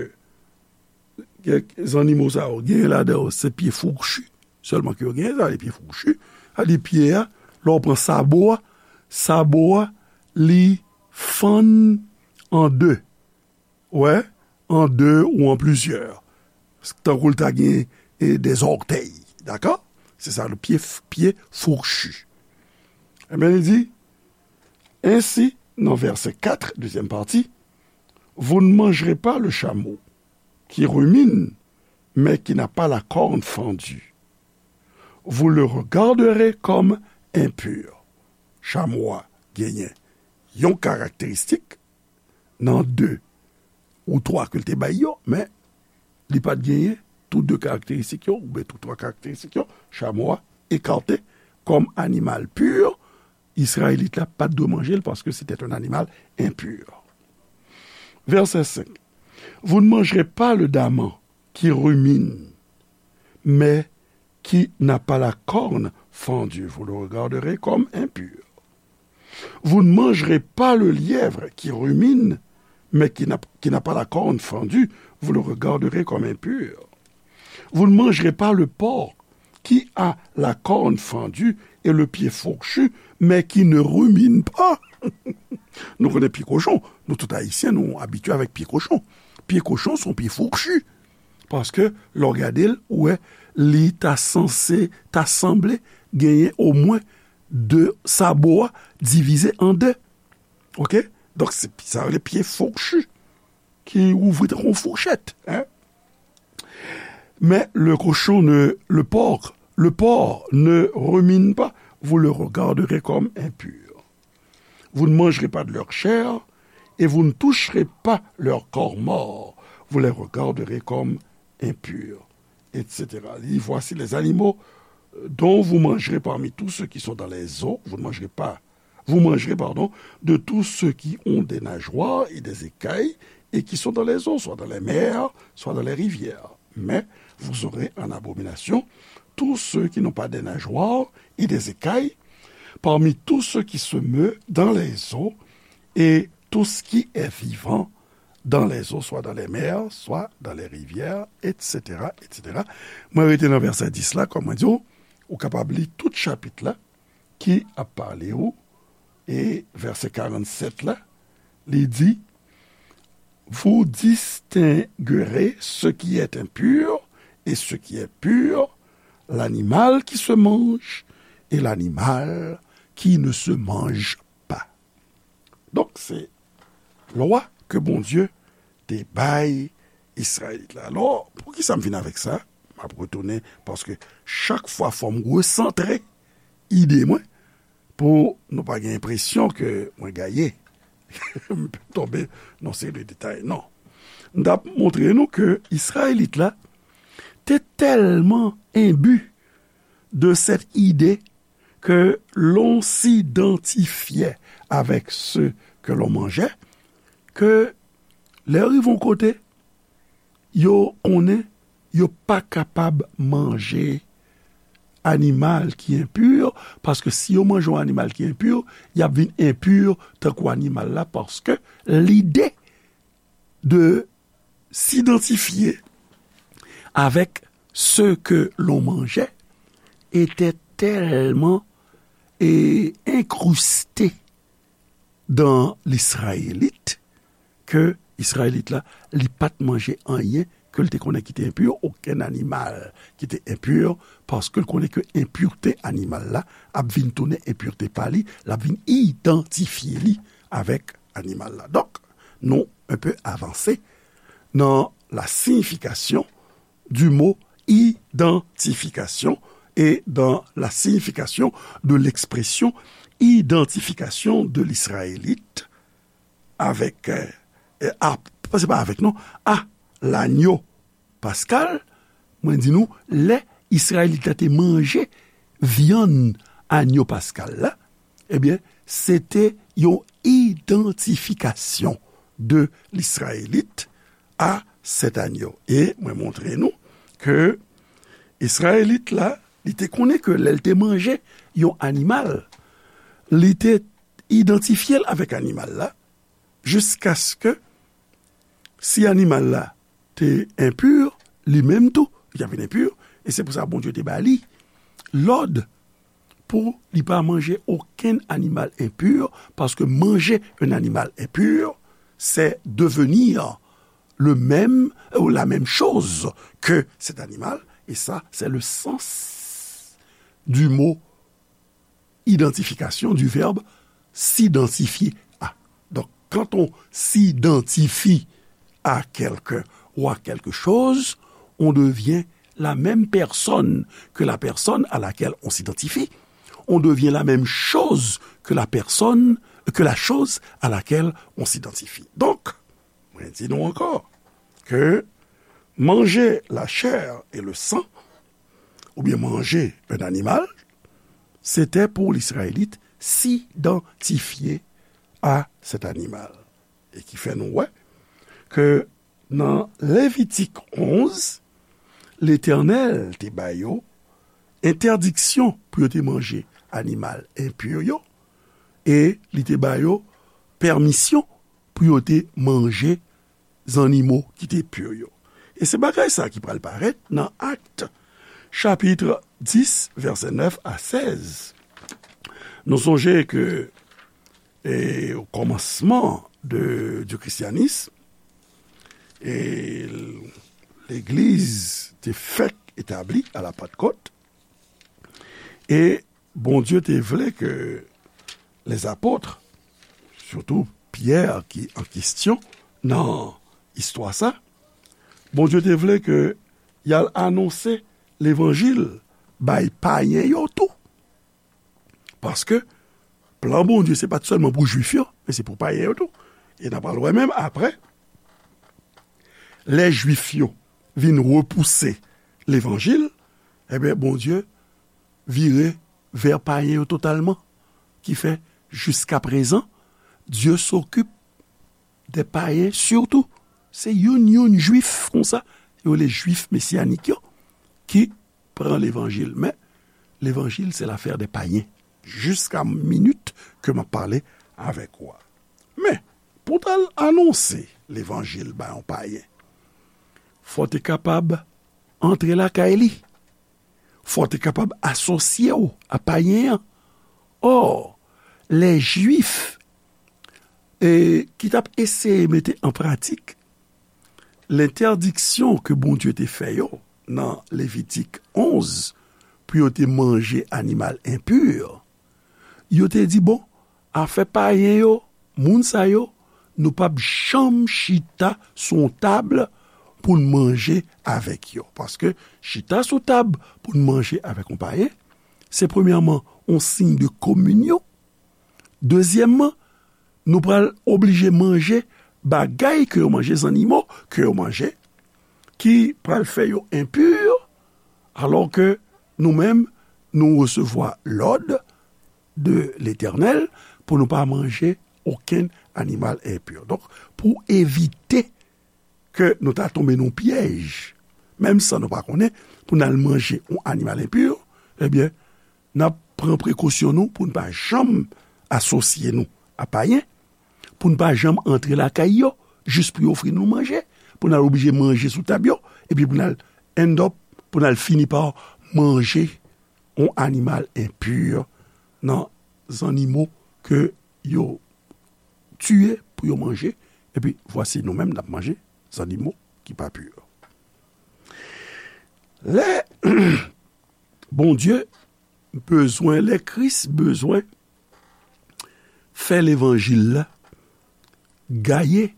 kèk zannimo sa yo, genyen ladan yo, se pye fouchi sèlman ke yo genyen, sa, se pye fouchi. Sa di pye a, lè w pran sabo a, sabo a, li fann an de. Wè, an de ou an plizyè. Tankou l ta gen, e, de zòtèy. Dakò? Se sa, le pye, pye fouchi. Ebyen, li di, ainsi, nan vèsè kat, dezyèm pati, Vous ne mangerez pas le chameau qui rumine, mais qui n'a pas la corne fendue. Vous le regarderez comme impur. Chamo a genyen yon karakteristik nan de ou twa ke l te bay yo, men li pa t genyen tout de karakteristik yo, oubyen tout twa karakteristik yo, chamo a ekate kòm animal pur, Izrayelit la pa t dwe manje l paske se te yon animal enpur. Vèsè senk. Vous ne mangerez pas le daman qui rumine, mais qui n'a pas la corne fendue, vous le regarderez comme impur. Vous ne mangerez pas le lièvre qui rumine, mais qui n'a, qui n'a pas la corne fendue, vous le regarderez comme impur. Vous ne mangerez pas le porc qui a la corne fendue et le pied fourchu, mais qui ne rumine pas. Nou konnen pye kochon. Nou tout Ayisyen, nou abitye avèk pye kochon. Pye kochon se yon pye fouchi. Paske, lè w gade l, ou wè, li ta sanse, ta sanble genyen omwen de sabo a divize an de. Oke? Donk, se sa yo rele pye fouchi, ki ouvri tankou yon fouchèt, en. Mais le cochon ne, le porc, le porc ne rumine pas, vous le regarderez comme impur. Vous ne mangerez pas de leur chair, et vous ne toucherez pas leur corps mort, vous les regarderez comme impurs, et cetera. Li di, voici les animaux dont vous mangerez parmi tous ceux qui sont dans les eaux, vous ne mangerez pas, vous mangerez, pardon, de tous ceux qui ont des nageoires et des écailles et qui sont dans les eaux, soit dans les mers, soit dans les rivières. Mais vous aurez en abomination tous ceux qui n'ont pas des nageoires et des écailles, parmi tous ceux qui se meut dans les eaux, et tout ce qui est vivant dans les eaux, soit dans les mers, soit dans les rivières, et cetera, et cetera. Mwen rete nan vèsè dis la, kòm mwen di w, ou kapab li tout chapit la ki ap pale w, e vèsè karannsèt la, li di, Vous distinguerez ce qui est impur et ce qui est pur, l'animal qui se mange et l'animal qui ne se mange pas. Donk, se lwa ke Bondye te bay Izrayelit la. Alò, poukisa m vin avèk sa? M ap retounen, paske chak fwa fò m resantre ide mwen, pou nou pa gen enpresyon ke mwen gaye. M tonbe nan seri de detay. Non. M t ap montre nou ke Izrayelit la te tèlman enbi de cette idée que l'on s'identifiait avec ceux que l'on mangeait, ke lè yo rive yon kote, yo konnen yo pa kapab manje animal ki enpi, paske si yo manje yon animal ki enpi, y ap vin enpi tankou animal la, paske lide de s'identifier avec ce que l'on mangeait était tellement et incrusté dans l'Israélite ke Izrayelit la, li pa t manje anyen ke l te konnen ki te enpi, okenn animal ki te enpi, paske l konnen ke enpirte animal la ap vin tounen enpirte pa li, l ap vin idantifye li avèk animal la. Donk, nou un peu avansé dans la signification du mot identification et dans la signification de l'expression identification de l'Israélite avec, euh, euh, à, c'est pas avec, non, à l'agneau pascal. Mwen di nou, lè Izrayelit la te manje vyann agneau pascal la, ebyen, se te yon idantifikasyon de l'Israélite à cet agneau. E mwen montre nou ke Izrayelit la, li te konnen ke lè l te manje yon animal, li te idantifye l avèk animal la, jiskaske si animal la te enpi, li menm tou, li t ap vin enpi, e se pou sa Bondye te ba li lòd pou li pa manje okenn animal enpi, paske manger un animal impur, c'est devenir le même ou la même chose que cet animal, et ça, c'est le sens du mot identification, du verbe s'identifier à. Donc, quand on s'identifie à quelqu'un ou à quelque chose, on devient la même personne que la personne à laquelle on s'identifie. On devient la même chose que la personne, que la chose à laquelle on s'identifie. Donc, mwen di nou ankò ke manger la chair et le sang, ou bien manger un animal, c'était pour l'Israélite s'identifier à cet animal. E ki fè nou wè ke nan Levitik onz, Letènèl te ba yo entèdiksyon pou yo te manje animal enpi yo, e li te ba yo pèmisyon pou yo te manje zannimo ki te pi yo. E se bagay sa ki pral parèt nan Akt, chapit dis, vèsè nèf a sèz. Nou sonje ke, e, o kòmansman de, du christianisme, e, legliz te fèk etabli a la Pantkòt, e Bondye te vle ke les apôtres, sitou Pyè ki an kesyon nan istwa sa, Bondye te vle ke y al anonse levanjil bay payen yo tou. Paske plan Bondye se pa t sèlman pou Jwif yo, men se pou payen yo tou. E n a pral wè menm apre, lè Jwif yo vin repouse levanjil, ebyen, Bondye vire vè payen yo totalman. Ki fè, jiska prezan, Dieu s'occupe des païens surtout. Se youn, youn Jwif konsa, yo rele Jwif mesyanik yo, ki pran levanjil. Men, levanjil, se lafè de payen. Jiska minit ke m ap pale avèk ou a. Men, pou w t al anonse levanjil bay yon payen, fò w te kapab antre lakay li. Fò w te kapab asosye w a payen an. Ò, lè Jwif, e, ki t ap eseye mete an pratik lentèdiksyon ke Bondye te fè yo nan Levitik onz, pou yo te manje animal enpi, yo te di, bon, afè payen yo, moun sa yo, nou p ap janm chita sou yon tab pou n manje avèk yo. Paske chita sou tab pou n manje avèk yon payen, se premyèman yon siy de kominyon. Dezyèmman, nou pral oblije manje bagay ke yo manje, zannimo ke yo manje, ki pral fè yo enpi, alò ke nou menm, Nou resevwa lòd de Letènèl pou nou pa manje okenn animal enpi. Donk, pou evite ke nou ta tonbe nan pyèj, menm san nou pa konnen, pou n al manje yon animal enpi, ebyen, n ap pran prekosyon nou pou n pa janm asosye nou a payen, pou n pa janm antre lakay yo, jis pou yo ofri nou manje, pou n al oblije manje sou tab yo, epi pou n al end up, pou n al fini pa manje yon animal enpi nan zannimo ke yo tiye pou yo manje, epi vwasi nou menm n ap manje zannimo ki pa pi. Lè Bondye bezwen, lè Kris bezwen fè levanjil la gaye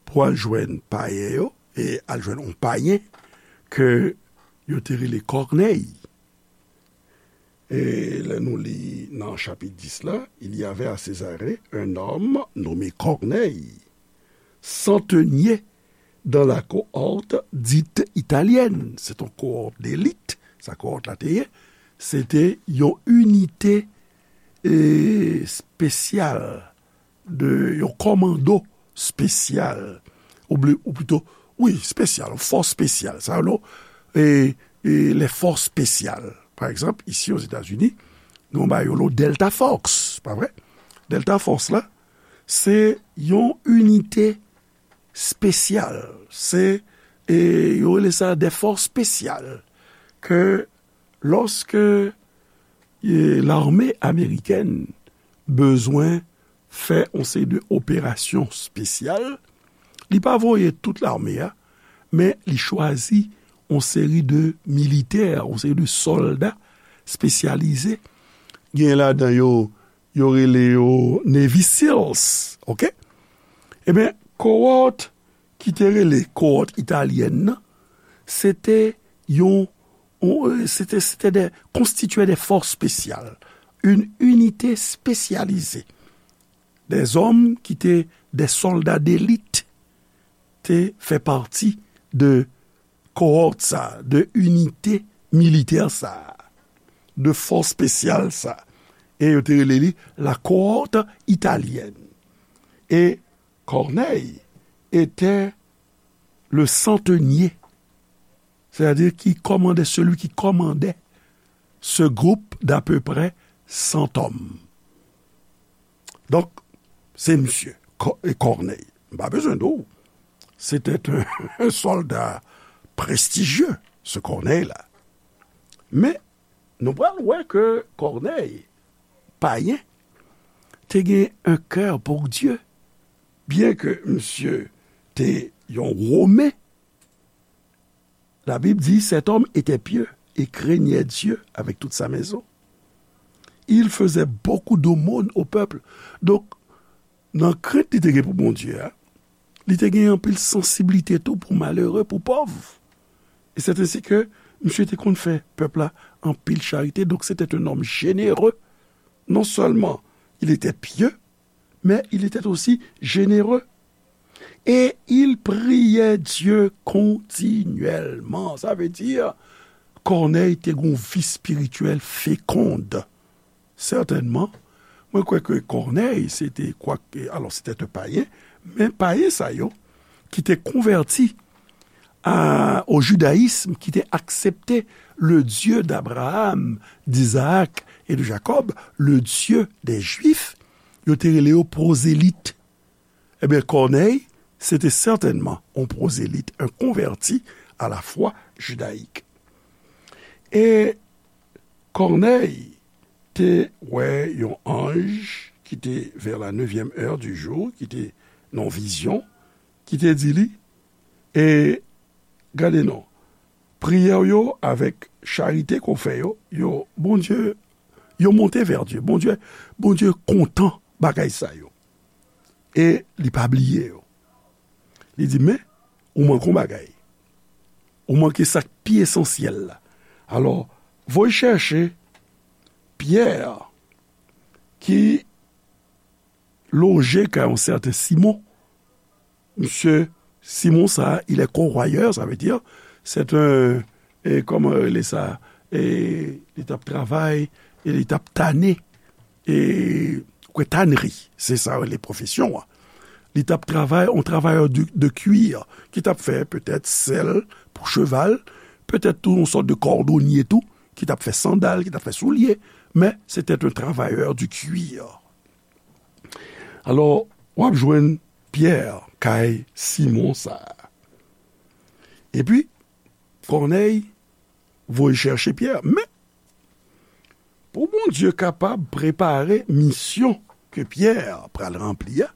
pou al jwenn payen yo, e al jwenn yon payen ke yo te rele Kònèy. E lè nou li nan chapit dis la, il y avait à Césarée un homme nommé Corneille, centenier dans la cohorte dite italienne. Se te yon kohòt delit, sa kohòt la te ye. Se te yon inite, e, espesyal, de yon kòmando espesyal, ou bli-, ou plito, wi, espesyal, yon fòs espesyal. Sa yo, e, e, les forces spéciales. Pa egzanp, isi Ozetazini, nou ba yo lo Delta Force, pa vre? Delta Force la, se yon inite espesyal. Se, e, yo rele sa des forces spéciales. Ke lòske, e, lame amerikèn bezwen fè yon seri de operasyon espesyal, li pa voye tout lame a, men li chwazi yon seri de militè, yon seri de sòlda espesyalize. Gen ladan yo, yo rele yo Navy SEALs, oke? Ebyen, kohòt ki te rele kohòt italyèn nan, se te yon, yon, se te, se te de, konstitye de fòs espesyal, une unité spécialisée. Des hommes ki te de sòlda delit te fè pati de kohòt sa, de inite militè sa, de fòs espesyal sa. E yo te rele li la cohorte italienne. E Corneille était le centenier, c'est-à-dire qui commandait, celui qui commandait ce groupe d'à peu près cent hommes. Donk, se misye, Kò-, e Corneille. M pa bezwen di w, c'était un, un soldat prestigieux, ce Corneille-là. Men, nou pral wè ke Corneille, payen, te gen un cœur pour Dieu. Byen ke misye te yon Women, la Bible dit, cet homme était pieux et craignait Dieu avec toute sa maison. Il faisait beaucoup d'aumônes au peuple. Donk, nan krent li te gen pou Bondye a, li te gen anpil sansiblite tou pou malere, pou pòv. E c'est ainsi que misye te konn fè pèp la anpil charite. Donc, c'était un homme généreux. Non seulement il était pieux, mais il était aussi généreux. Et il priait Dieu continuellement. Sa vle di, Kònèy te gon vi espirityèl fekonn. Sètènman, mwen kwè ke Kònèy, se te, kwak, alò, se te te payen, men payen sa yo ki te konvèti a, au judaïsme, ki te aksepte le Dieu d'Abraham, d'Isaac et de Jacob, le Dieu des Juifs, yo te rele yo pwozelit. Ebyen, Kònèy, se te sètènman yon pwozelit, un converti à la foi judaïque. E Kònèy te wè yon anj ki te vers la neuvième heure du jour, ki te nan vizyon, ki te di li, e gade non, priyè w yo avèk charite ke w fè yo, yo, Bondye, yo monte vers Dieu. Bondye, Bondye kontan bagay sa yo. E li pa bliye yo. Li di, men, ou manke yon bagay. Ou manke sa k pi esansyèl la. Alò, voye chèche Pyè ki loje kay yon sèten Simon. Misye Simon sa, il est corroyeur, ça veut dire, c'est un, e kòman yo rele sa, e li t ap travay, e li t ap tane, e kwè tanri, se sa yo rele pwofesyon an. Li t ap travay, yon travayè de, de kwir, ki t ap fè petèt sèl pou cheval, petèt tou yon sòt de kòdonye tou, ki t ap fè sandal, ki t ap fè soulye, men se te yon travayè de kwir. Alò, w ap jwenn Pyè kay Simon sa a. Epi, Kònèy voye chèche Pyè. Men, pou Bondye kapab prepare misyon ke Pyè pral ranpli a,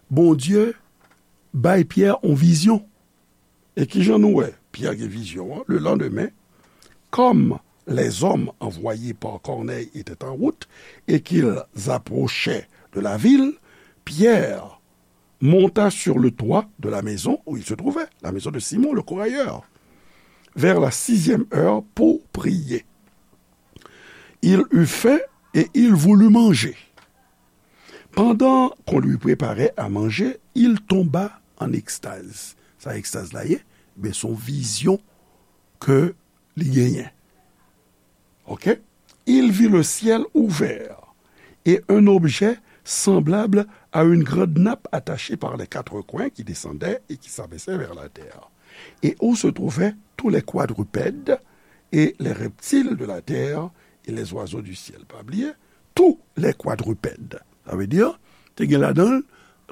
Bondye bay Pyè yon vizyon. E kijan nou wè Pyè gen vizyon an? Le lendemain, comme les hommes envoyés par Corneille étaient en route et qu'ils approchaient de la ville, Pierre monta sur le toit de la maison où il se trouvait, la maison de Simon le corailleur, vers la sixième heure pour prier. Il eut faim et il voulut manger. Pendant qu'on lui préparait à manger, il tomba en extase. Sa ekstaz la ye? Ben, se yon vizyon ke li genyen. Ok? Il vit le ciel ouvert et un objet semblable à une grande nappe attachée par les quatre coins qui descendait et qui s'abaissait vers la terre, et où se trouvaient tous les quadrupèdes et les reptiles de la terre et les oiseaux du ciel. Pa bliye, tous les quadrupèdes. Sa vle di, te gen ladan l,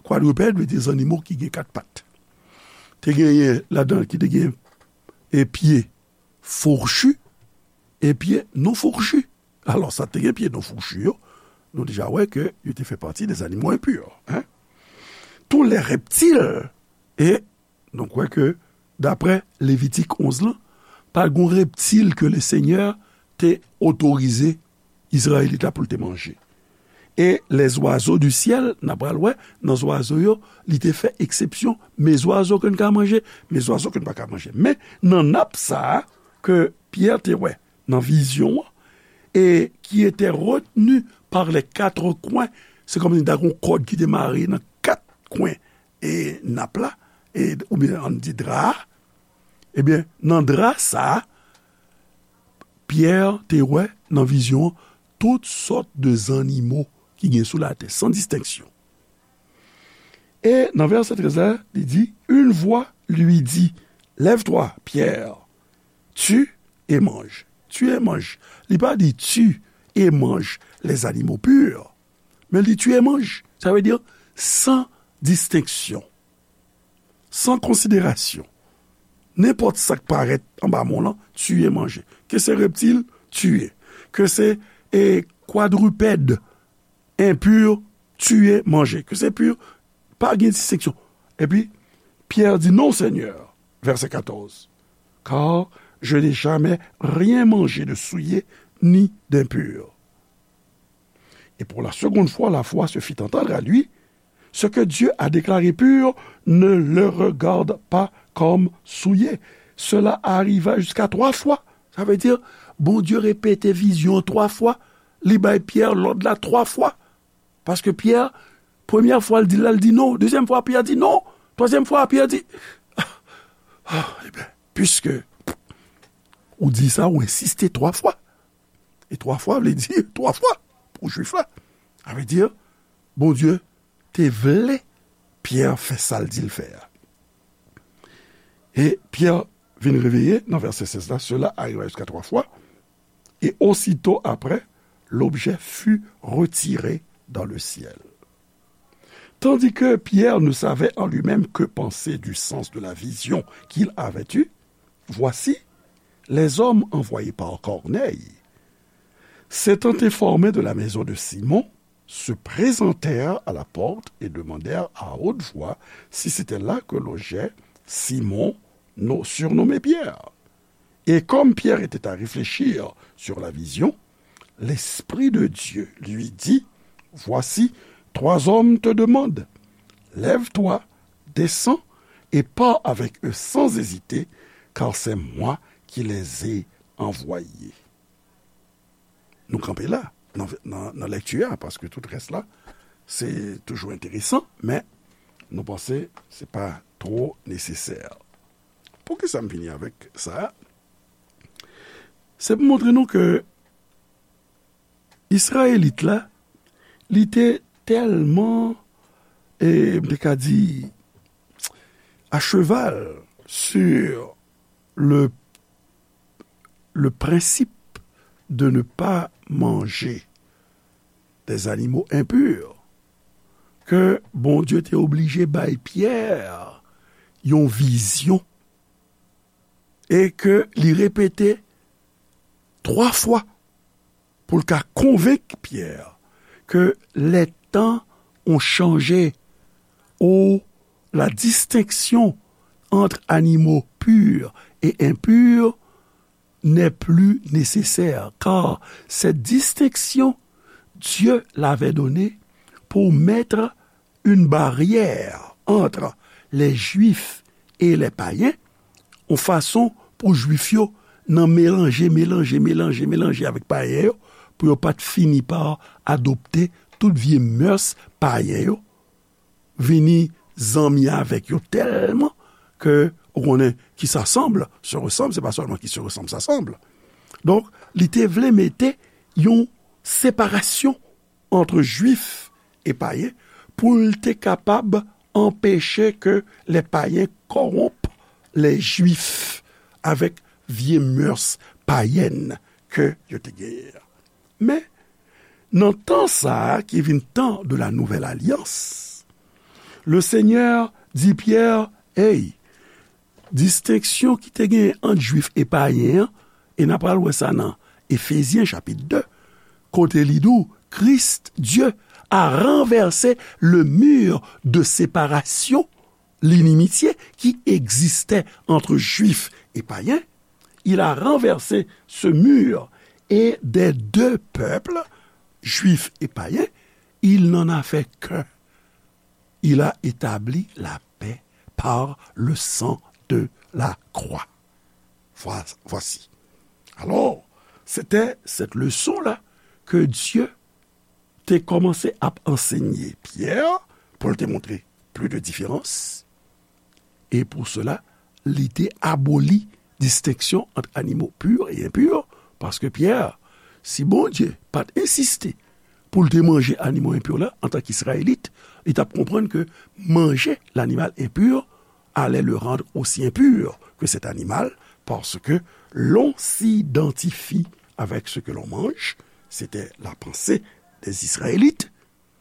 kwadripèd, vle di zannimo ki gen kat pat. Te genyen ladan l ki te gen e pye fourchu, e pye non fourchu. Alò, sa te gen pye non fourchu yo, nou deja wè ke yo te fè pati de zanimo enpi, en. Tous les reptiles, e nou kwè ke, daprè Levitik onz lan, pa t gon reptil ke Lesenyè te otorize Izrayelit la pou l te manje. E les oiseaux du ciel, n a pral wè, nan zwazo yo, li te fè eksepsyon, mes oiseaux que n ka manje, mes oiseaux que n pa ka manje. Men, nan nap sa a, ke Pyè te wè nan vizyon an, et qui était retenu par les quatre coins, se kòmsi ta gon kòd ki te mare nan kat kwen e nap la, e, oubyen ann di dra a, ebyen, nan dra sa a, Pyè te wè nan vizyon an tout sòt de zannimo ki gen sou latè, san distenksyon. E nan vèsè trèz la, li di, une voix lui dit, lève-toi, Pierre, tue et mange. Tue et mange. Li pa di tue et mange les animaux purs, men li di tue et mange. Sa vle di san distenksyon, san konsiderasyon. Nenpòt sa k parèt anba men w lan, tiye, manje. Ke se reptil, tiye. Ke se, e, kwadripèd, enpi, tiye, manje. Ke se pi, pa gen distenksyon. Epi, Pierre dit, non, Seigneur, verset quatorze, car je n'ai jamais rien mangé de souillé ni d'impur. Et pour la seconde fois, la voix se fit entendre à lui, ce que Dieu a déclaré pur, ne le regarde pas comme souillé. Cela arriva jusqu'à trois fois. Sa vle di, Bondye repete vizyon an twa fwa, li bay Pyè lòd la twa fwa. Paske Pyè, premyè fwa, l di l la, l di non. Dezyèm fwa, Pyè di non. Twazyèm fwa, Pyè di, ah, ah, ebyen, piske ou di sa, ou ensiste twa fwa. E twa fwa vle di twa fwa pou Jwif la. Sa vle di, Bondye te vle Pyè fè sa l di l fè a. E Pyè vin reveye nan vèsè sèz la, cela arriva jusqu'à trois fois, et aussitôt après, l'objet fut retiré dans le ciel. Tandis que Pierre ne savait en lui-même que penser du sens de la vision qu'il avait eue, voici, les hommes envoyés par Corneille, s'étant informés de la maison de Simon, se présentèrent à la porte et demandèrent à haute voix si c'était là que logeait Simon, no-, surnommé Pierre. Et comme Pierre était à réfléchir sur la vision, l'Esprit de Dieu lui dit, voici, trois hommes te demandent. Lève-toi, descends et pars avec eux sans hésiter, car c'est moi qui les ai envoyés. Nou kanpe la, nan, nan, nan lèkti a, paske tout rès la, se toujou enteresan, men nou panse se pa twò nesesè. Poukisa m vini avèk sa a? Se pou montre nou ke Izrayelit la, li te tèlman, e, m te ka di, à cheval sur le, le principe de ne pas manger des animaux impurs, ke Bondye te oblije bay Pyè yon vizyon e ke li repete twa fwa pou l ka konvenk Pyè ke les temps ont changé, ou la distinction entre animaux purs et impurs n'est plus nécessaire, car cette distinction, Dieu l'avait donnée pour mettre une barrière entre les Juifs et les païens, yon fason pou Jwif yo nan melanje, melanje, melanje, melanje avèk payen yo, pou yo pa t fini pa adopte tout vye mœurs payen yo, vini zanmi avèk yo tèlman ke ou konnen qui s'assemble se ressemble, se pa sèlman qui se ressemble s'assemble. Donk, li te vle mete yon separasyon ant Jwif e payen pou l te kapab anpeche ke les païens corrompent les Juifs avèk vye mœurs païennes ke yo te genyen an. Men, nan tan sa a ki vin tan de la nouvelle alliance, le Seigneur di Pyè, hey, distenksyon ki te genyen ant Jwif e payen an, e n a pral wè sa nan Efezyen chapit de, kote li di w, Christ, Dieu, a renversé le mur de séparation, l'inimitié qui existait entre Juifs et païens. Il a renversé ce mur et des deux peuples, Juifs et païens, il n'en a fait qu'un. Il a établi la paix par le sang de la croix. Voi-, voici. Alors, c'était cette leçon-là que Dieu te kòmanse ap ansenye Pyè pou l te montre pli de diferans. E pou sela, li te aboli distenksyon ant animo pur e enpur, paske Pyè, si Bondye pa t ensiste pou l te manje animo enpur la, antanke Izrayelit, li t ap konprann ke manger l'animal impur allait le rendre aussi impur que cet animal, parce que l'on s'identifie avec ce que l'on mange, c'était la pensée des Israélites.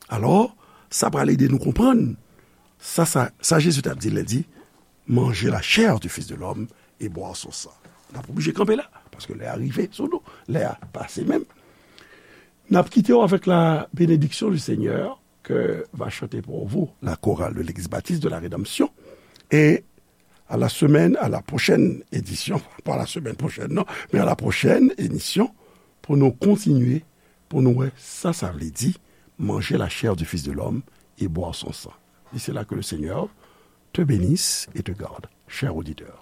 Alò, sa pral ede nou konprann sa, sa, sa Jezi t ap di lè l di, mangez la chair du Fils de l'homme et boire son sang. N ap oblije kanpe la, paske lè a rive sou nou, lè a pase menm. N ap kite w avec la bénédiction du Seigneur que va chanter pour vous la chorale de l'Église baptiste de la Rédemption. Et à la semaine, à la prochaine édition, pas la semaine prochaine, non, mais à la prochaine émission, pou nou kontinye, pou nou wè sa sa vle di, manger la chair du Fils de l'homme et boire son sang. D'ici là, que le Seigneur te bénisse et te garde, cher auditeur.